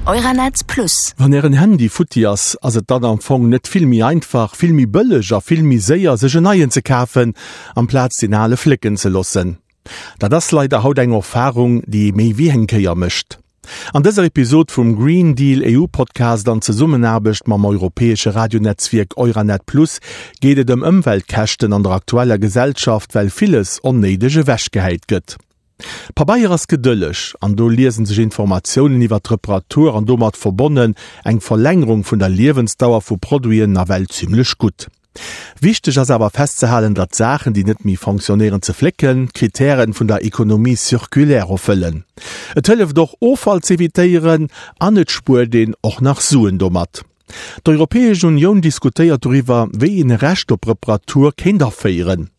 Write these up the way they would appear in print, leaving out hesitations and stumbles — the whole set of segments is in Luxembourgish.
Euranet Plus. Wann Ären Handy futti ass, ass et dann am Fong net vill méi einfach, vill méi bëlleg a vill méi séier sech en neien ze kafen, amplaz deen ale flécken ze loossen? Dat ass leider haut eng Erfarung, déi ee méi wéi eng Kéier mécht. An dëser Episod vum Green Deal EU Podcast an Zesummenaarbecht mam europäesche Radionetzwierk Euranet Plus geet et ëm Ëmweltkäschten an der aktueller Gesellschaft, well villes onnéideg ewechgehäit gëtt. Pabeier ass gedëlleg an do liesen sech Informatiounen iwwer d'Reparatur an domat verbonnen eng Verlängerung vun der Liewensdauer vu Produiten nawell zimmlech gutt. Wichteg ass awer festzehalen, datt Saachen, déi net méi fonctionnéieren, ze flécken, d'Kritären vun der Économie circulaire erfëllen. Et hëlleft och Offall z'evitéieren an et spuert een och nach Suen domat. D'Europäesch Unioun diskutéiert doriwwer, wéi een e Recht op Reparatur kéint aféieren.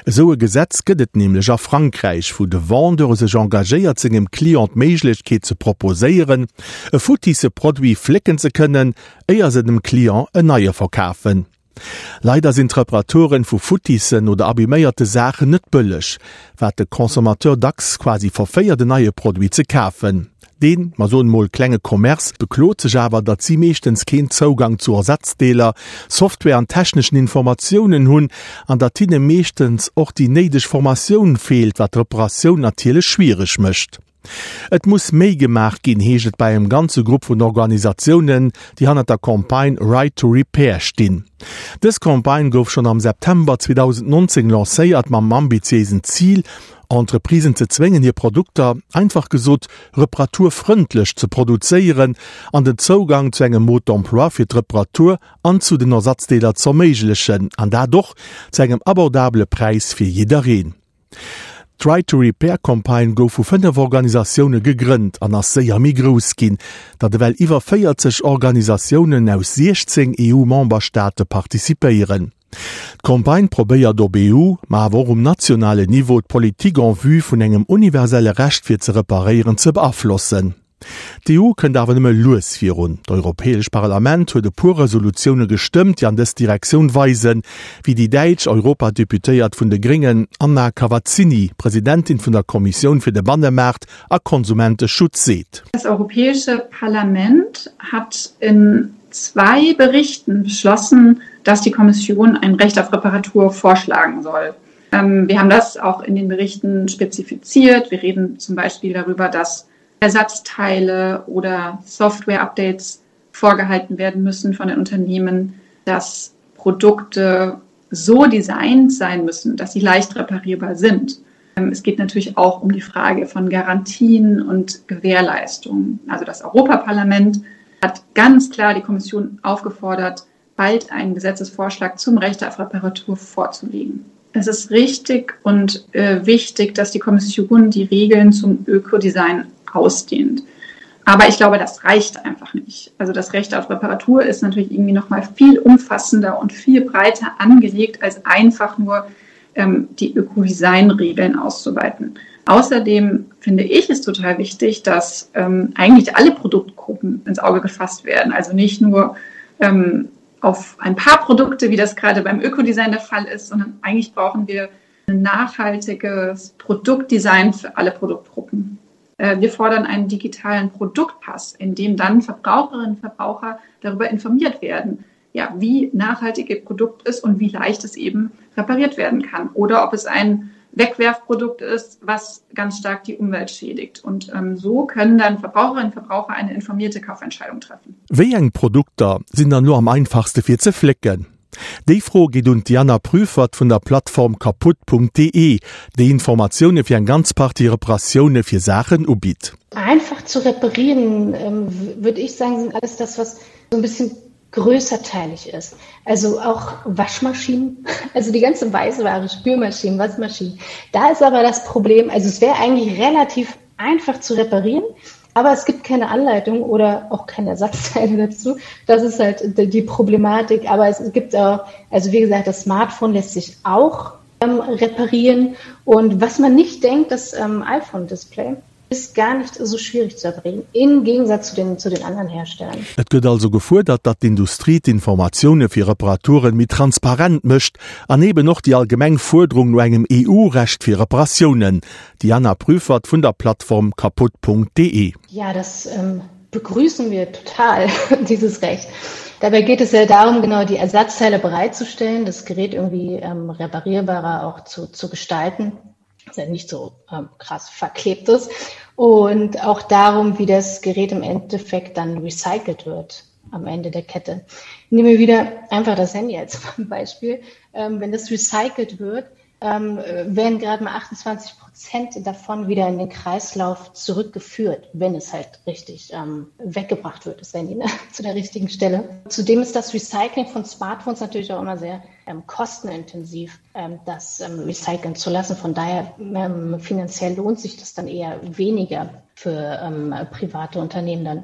Esou e Gesetz gëtt et nämlech a Frankräich, wou de Vendeur sech engagéiert sengem Client d'Méiglechkeet ze proposéieren, e futtisse Produit flécken ze kënnen, éier se dem Client en neie verkafen. Leider sinn d'Reparaturen vu futtissen oder abiméierte Saachen net bëlleg, wat de Consommateur dacks quasi verféiert en neie Produit ze kafen. Deen, mer soen mol, klenge Commerce beklot sech awer, datt si meeschtens keen Zougang zu Ersatzdeeler, Software an techneschen Informatiounen hunn an datt hinne meeschtens och déi néideg Formatioun feelt, wat d'Reparatioun natierlech schwiereg mécht. Et muss méi gemaach ginn, heescht et bei engem ganze Grupp vun Organisatiounen, déi hannert der Campagne Right to Repair stinn. Dës Campagne gouf schonn am September 2019 lancéiert mam ambitiéisen Zil, Entreprisen ze zwéngen hir Produkter, einfach gesot, reparaturfrëndlech ze produzéieren an den Zougang zu engem Mode d'emploi fir d'Reparatur an zu den Ersatzdeeler z'erméiglechen, an dat och zu engem abordabele Präis fir jiddereen. D'Right to Repair Campagne gouf vu 5 Organisatioune gegrënnt an ass séier méi grouss ginn, datt ewell iwwer 40 Organisatiounen aus 16 EU-Memberstaate participéieren. D'Campagne probéiert op EU, ma awer och um nationalen Niveau d'Politik en vue vun engem universelle Recht fir ze reparéieren ze beaflossen. D'EU kënnt awer nëmme lues virun. D'Europäesch Parlament huet e puer Resolutioune gestëmmt, déi an dës Direktioun weisen, wéi déi däitsch Europadeputéiert vun de Gréngen Anna Cavazzini, Presidentin vun der Kommissioun fir de Bannemaart a Konsumenteschutz, seet. Das Europäische Parlament hat in zwei Berichten beschlossen, dass die Kommission ein Recht auf Reparatur vorschlagen soll. Ähm, wir haben das auch in den Berichten spezifiziert. Wir reden zum Beispiel darüber, dass Ersatzteile oder Software-Updates vorgehalten werden müssen von den Unternehmen, dass Produkte so designt sein müssen, dass sie leicht reparierbar sind. Ähm, es geht natürlich auch um die Frage von Garantien und Gewährleistungen. Also das Europaparlament hat ganz klar die Kommission aufgefordert, bald einen Gesetzesvorschlag zum Recht auf Reparatur vorzulegen. Es ist richtig und äh, wichtig, dass die Kommission die Regeln zum Ökodesign ausdehnt. Aber ich glaube, das reicht einfach nicht. Also das Recht auf Reparatur ist natürlich irgendwie noch mal viel umfassender und viel breiter angelegt, als einfach nur ähm, die Ökodesign-Regeln auszuweiten. Außerdem finde ich es total wichtig, dass ähm, eigentlich alle Produktgruppen ins Auge gefasst werden. Also nicht nur ähm, auf ein paar Produkte, wie das gerade beim Ökodesign der Fall ist, sondern eigentlich brauchen wir ein nachhaltiges Produktdesign für alle Produktgruppen. Äh, wir fordern einen digitalen Produktpass, in dem dann Verbraucherinnen und Verbraucher darüber informiert werden, ja, wie nachhaltig ihr Produkt ist und wie leicht es eben repariert werden kann oder ob es ein Wegwerfprodukt ist, was ganz stark die Umwelt schädigt. Und ähm, so können dann Verbraucherinnen und Verbraucher eine informierte Kaufentscheidung treffen. Wéi eng Produkter sinn dann elo am einfachste fir ze flécken? Déi Fro geet un d'Diana Prüfert vun der Plattform kaputt.de, déi Informatioune fir eng ganz Partie Reparatioune fir Saachen ubitt. Einfach zu reparieren, ähm, würde ich sagen, sind alles das, was so ein bisschen größerteilig ist. Also auch Waschmaschinen, also die ganze Weißware, Spülmaschinen, Waschmaschinen. Da ist aber das Problem, also es wäre eigentlich relativ einfach zu reparieren, aber es gibt keine Anleitung oder auch keine Ersatzteile dazu. Das ist halt die Problematik. Aber es gibt auch, also wie gesagt, das Smartphone lässt sich auch ähm, reparieren. Und was man nicht denkt, das ähm, iPhone-Display ist gar nicht so schwierig zu erbringen, im Gegensatz zu den, zu den anderen Herstellern. Et gëtt also gefuerdert, datt d'Industrie d'Informatioune fir Reparaturen méi transparent mécht an eben och déi allgemeng Fuerderung no engem EU-Recht fir Reparatiounen. Diana Prüfert vun der Plattform kaputt.de. Ja, das ähm, begrüßen wir total dieses Recht. Dabei geht es ja darum, genau die Ersatzteile bereitzustellen, das Gerät irgendwie ähm, reparierbarer auch zu, zu gestalten, dass er nicht so ähm, krass verklebt ist. Und auch darum, wie das Gerät im Endeffekt dann recycelt wird am Ende der Kette. Nehmen wir wieder einfach das Handy als Beispiel. Ähm, wenn das recycelt wird, ähm, werden gerade mal 28 Prozent davon wieder in den Kreislauf zurückgeführt, wenn es halt richtig ähm, weggebracht wird, das Handy ne? zu der richtigen Stelle. Zudem ist das Recycling von Smartphones natürlich auch immer sehr ähm, kostenintensiv, ähm, das ähm, recyceln zu lassen. Von daher ähm, finanziell lohnt sich das dann eher weniger für ähm, private Unternehmen dann.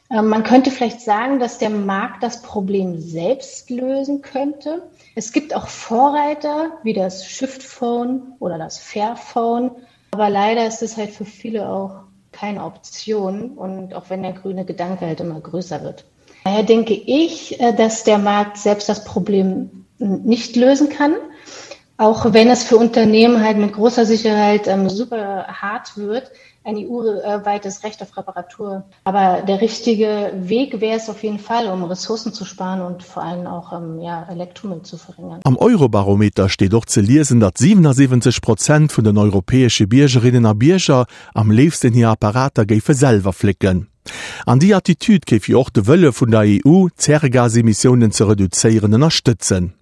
Ähm, man könnte vielleicht sagen, dass der Markt das Problem selbst lösen könnte. Es gibt auch Vorreiter wie das Shiftphone oder das Fairphone, aber leider ist es halt für viele auch keine Option und auch wenn der grüne Gedanke halt immer größer wird. Daher denke ich, äh, dass der Markt selbst das Problem nicht lösen kann, auch wenn es für Unternehmen halt mit großer Sicherheit ähm, super hart wird, ein EU-weites Recht auf Reparatur. Aber der richtige Weg wäre es auf jeden Fall, um Ressourcen zu sparen und vor allem auch ähm, ja, Elektromüll zu verringern. Am Eurobarometer steet och ze liesen, datt 77 Prozent vun den europäesche Biergerinnen a Bierger am léifsten hir Apparater géife selwer flécken. An déi Attitüd géif jo och de Wëlle vun der EU, d'Zäregasemissiounen ze reduzéieren, ënnerstëtzen.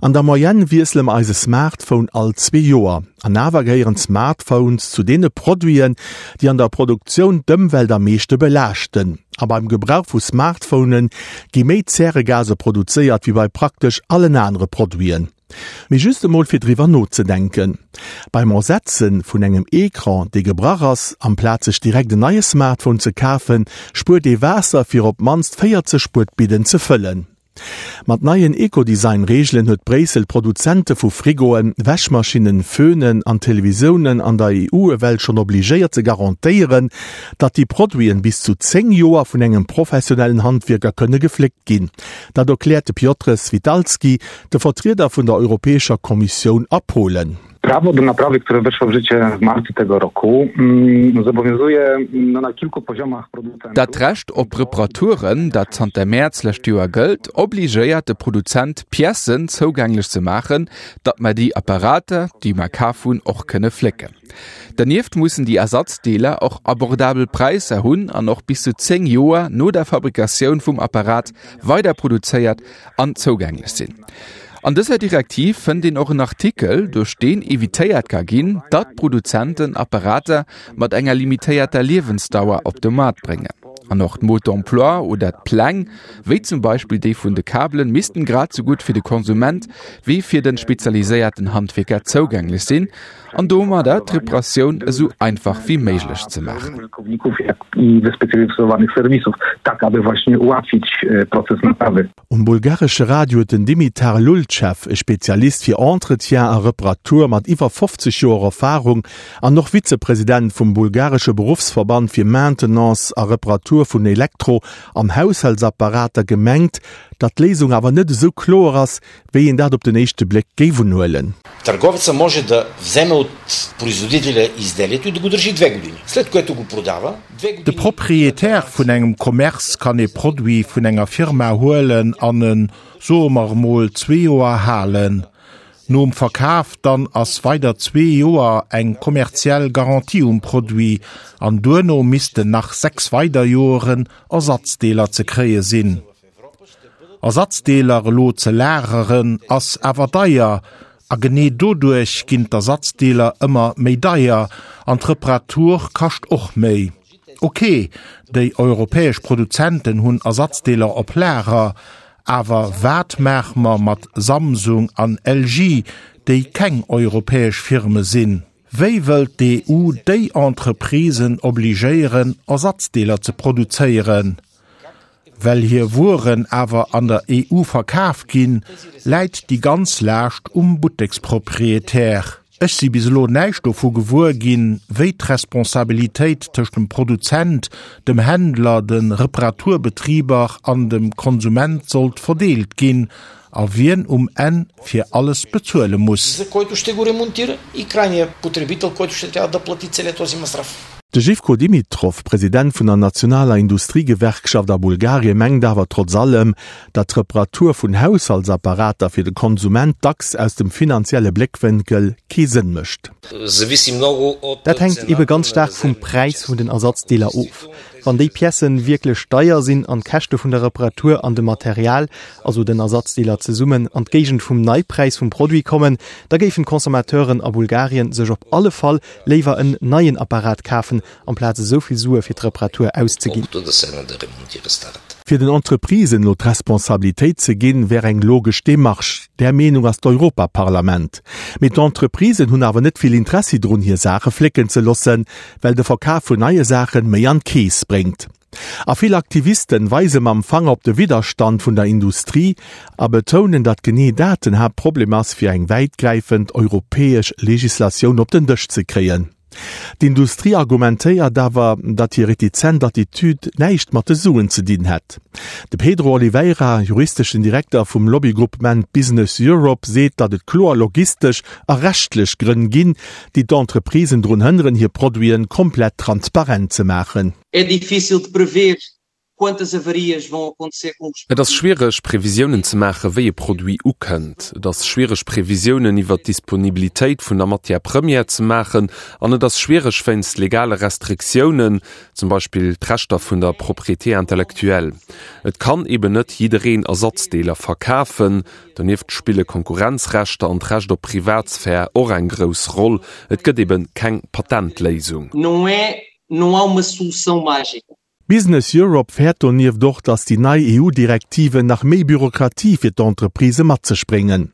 An der Moyenne wiessele mer eise Smartphone all zwee Joer. An awer gehéieren d'Smartphones zu deene Produiten, déi an der Produktioun d'Ëmwelt am meeschte belaaschten. A beim Gebrauch vu Smartphone gi méi Zäregase produzéiert wéi bei praktesch allen anere Produiten. Mee just emol fir driwwer nozedenken, Beim Ersetze vun engem Ecran, dee gebrach ass, amplaz sech direkt en neie Smartphone ze kafen, spuert ee Waasser fir op d'mannst 40 Spuetbidden ze fëllen. Mat neien Ecodesign-Reegelen huet Bréissel d'Produzente vu Frigoen, Wäschmaschinnen, Föhnen an Televisiounen an der EU ewell schonn obligéiert ze garantéieren, datt déi Produiten bis zu 10 Joer vun engem professionellen Handwierker kënne gefléckt ginn. Dat erkläert de Piotr Switalski, de Vertrieder vun der Europäescher Kommissioun a Polen. Prawo do naprawy, które weszło w życie w marcu tego roku, mm, zobowiązuje no, na kilku poziomach producentów. Dat Recht op Reparaturen, dat zanter Mäerz lescht Joer gëllt, obligéiert de Produzent, Piècen zougänglech ze maachen, datt mer déi Apparater, déi mer kaf hunn, och kënne flécken. Dernieft mussen déi Ersatzdeeler och abordabel Präisser hunn an och bis zu 10 Joer no der Fabrikatioun vum Apparat weider produzéiert an zougänglech sinn. An dëser Direktiv fënnt een och en Artikel, duerch deen evitéiert ka ginn, datt Produzenten Apparater mat enger limitéierter Liewensdauer op de Maart bréngen. An och d'Mode d'emploi oder d'Pläng, wéi zum Beispill déi vun de Kabelen, missten grad sou gutt fir de Konsument wéi fir de spezialiséierten Handwierker zougänglech sinn an domadder d'Reparatioun esou einfach wéi méiglech ze maachen. Um bulgaresche Radio huet den Dimitar Lultschew, e Spezialist fir Entretien a Reparatur mat iwwer 50 Joer Erfarung an och Vizepresident vum bulgaresche Beruffsverband fir Maintenance a Reparatur vun Elektro an Haushaltsapparater, gemengt, datt d'Léisung awer net esou kloer ass, wéi een dat op den éischte Bléck géif unhuelen. Търговеца може да вземе от производителя изделието и да го държи две години, след което го продава. De Proprietär vun engem Commerce kann ee Produit vun enger Firma huelen an en, soe mer emol, zwee Joer halen. Nom Verkaf dann ass weider zwee Joer eng kommerziell Garantie um Produit an duerno missten nach 6 weider Joeren Ersatzdeeler ze kréie sinn. Ersatzdeeler elo ze lageren ass awer deier a genee doduerch ginn d'Ersatzdeeler ëmmer méi deier an d'Reparatur kascht och méi. Ok, déi europäesch Produzenten hunn Ersatzdeeler op Lager, awer wat maache mer mat Samsung an LG, déi keng europäesch Firme sinn? Wéi wëllt d'EU déi Entreprisen obligéieren, Ersatzdeeler ze produzéieren? Well hir Wueren awer an der EU verkaf ginn, läit déi ganz Laascht um Butteksproprietär. Ech si bis elo näischt dovu gewuer ginn, wéi d'Responsabilitéit tëscht dem Produzent, dem Händler, de Reparaturbetriber an dem Konsument sollt verdeelt ginn a wien um Enn fir alles bezuele muss. De Zhivko Dimitrov, President vun der nationaler Industriegewerkschaft a Bulgarie mengt awer trotz allem, datt d'Reparatur vun Haushaltsapparater fir de Konsument dacks aus dem finanzielle Bléckwénkel kee Sënn mécht. Dat hänkt ebe ganz staark vum Präis vun den Ersatzdeeler of. Wann déi Piècen wierklech deier sinn an d'Käschte vun der Reparatur an dem Material, also den Ersatzdeeler zesummen, an d'Géigend vum Neipräis vum Produit kommen, da géifen d'Consommateuren a Bulgarien sech op alle Fall léiwer en neien Apparat kafen, amplaz esou vill Sue fir d'Reparatur auszeginn. Fir den Entreprisen elo d'Responsabilitéit ze ginn, wär eng logesch Demarche. Där Meenung ass d'Europaparlament. Mee d'Entreprisen hunn awer net vill Interessi drun, hir Saache flécken ze loossen, well de Verkaf vun neie Saachen méi an d'Keess bréngt. A vill Aktivisten weise mam Fanger op de Widderstand vun der Industrie a betounen, datt genee dat den Haaptproblem ass, fir eng wäitgräifend europäesch Legislatioun op den Dësch ze kréien. D'Industrie argumentéiert awer, datt hir retizent Attitude näischt mat de Suen ze dinn hätt. De Pedro Oliveira, juristeschen Direkter vum Lobbygroupement Business Europe, seet, datt et kloer logistesch a rechtlech Grënn ginn, déi d'Entreprisen drun hënneren, hir Produiten komplett transparent ze maachen. É difícil de prever quantas avarias vão acontecer com os. Et ass schwiereg Previsiounen ze maachen, wéi e Produit ukënnt. Et ass schwiereg Previsiounen iwwert d'Disponibilitéit vun der Matière première ze maachen an et ass schwiereg wéinst legale Restriktiounen, zum Beispill d'Rechter vun der Propriété intellectuelle. Et kann eben net jiddereen Ersatzdeeler verkafen. Donieft spille Konkurrenzrechter an d'Recht op Privatsphär och eng grouss Roll. Et gëtt eben keng Patentléisung. Não é, não há uma solução mágica. Business Europe fäert donieft och, datt déi nei EU-Direktiven nach méi Bürokratie fir d'Entreprisë mat sech bréngen.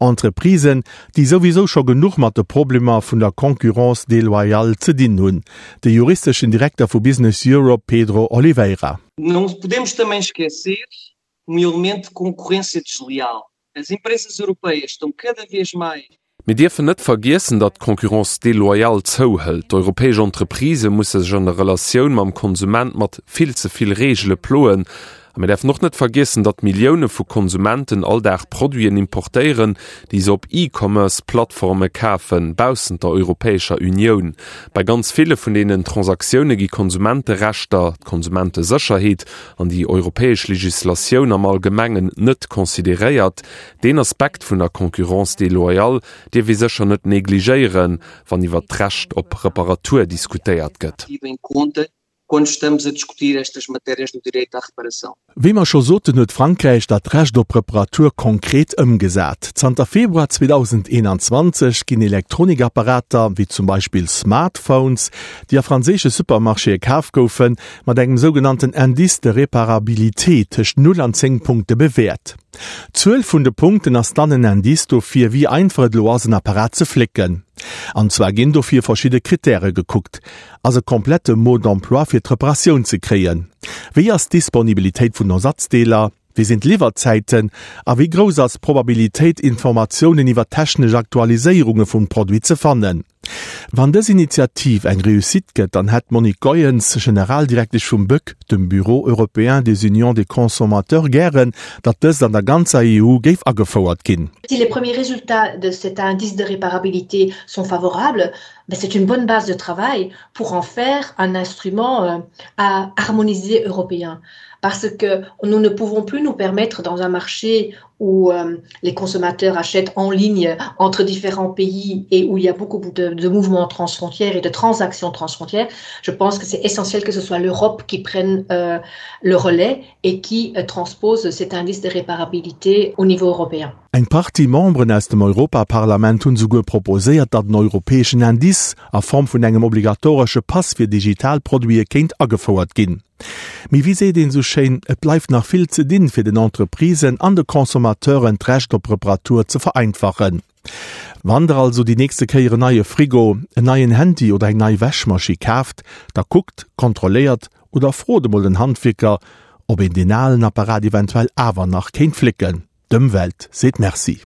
Entreprisen, déi souwisou scho genuch mat de Problemer vun der Concurrence déloyale ze dinn hunn. De juristeschen Direkter vu Business Europe Pedro Oliveira. Não podemos também esquecer um elemento de concorrência desleal. As empresas europeias estão cada vez mais. Mir dierfen net vergiessen, datt d'Concurrence déloyale zouhëlt. D'europäesch Entreprisë musse sech an der Relatioun mam Konsument mat vill ze vill Reegele ploen. A mir däerfen och net vergiessen, datt Millioune vu Konsumenten all Dag Produiten importéieren, déi se op E-Commerce-Plattforme kafen, baussent der Europäescher Unioun. Bei ganz ville vun deenen Transaktioune gi Konsumenterechter, d'Konsumentesécherheet an déi europäesch Legislatioun am Allgemengen net consideréiert. Deen Aspekt vun der Concurrence déloyale dierf ee sécher net negligéieren, wann iwwert d'Recht op Reparatur diskutéiert gëtt. Wéi mer scho soten, huet Frankräich dat Recht op Reparatur konkret ëmgesat. Zanter Februar 2021 ginn Elektronikapparater, wéi zum Beispill Smartphones, déi a franséische Supermarchéë kaf goufen, mat engem sougenannten Indice de réparabilité tëscht 0 an 10 Punkte bewäert. D'Zuel vun de Punkten ass dann en Indice dofir, wéi einfach et elo ass, en Apparat ze flécken. An zwar ginn dofir verschidde Krittäre gekuckt, Ass e komplette Mode d'emploi fir d'Reparatioun ze kréien? Wéi ass d'Disponibilitéit vun Ersatzdeeler? Wéi sinn d'Liwwerzäiten? A wéi grouss ass d'Probabilitéit, Informatiounen iwwer technesch Aktualiséierunge vum Produit ze fannen? Wann dës Initiativ eng Réussite gëtt, dann hätt d'Monique Goyens, Generaldirektesch vum BEUC, dem Bureau européen des unions des consommateurs, gären, datt dëst an der ganzer EU géif agefouert ginn. Si les premiers résultats de cet indice de réparabilité sont favorables, ben c'est une bonne base de travail pour en faire un instrument euh, à harmoniser européen. Parce que nous ne pouvons plus nous permettre dans un marché où euh, les consommateurs achètent en ligne entre différents pays et où il y a beaucoup de, de mouvements transfrontières et de transactions transfrontières, je pense que c'est essentiel que ce soit l'Europe qui prenne euh, le relais et qui euh, transpose cet indice de réparabilité au niveau européen. Eng Partie Memberen aus dem Europaparlament hunn souguer proposéiert, datt en europäeschen Indice a Form vun engem obligatoresche Pass fir digital Produite kéint agefouert ginn. Mee wéi seet een esou schéin, et bleift nach vill ze dinn, fir den Entreprisen an de Consommateuren d'Recht op Reparatur ze vereinfachen. Wann der also déi nächste Kéier en neie Frigo, en neien Handy oder eng nei Wäschmaschi kaaft, da kuckt, kontrolléiert oder frot emol den Handwierker, ob een deen alen Apparat eventuell awer nach kéint flécken. D'Ëmwelt seet Merci.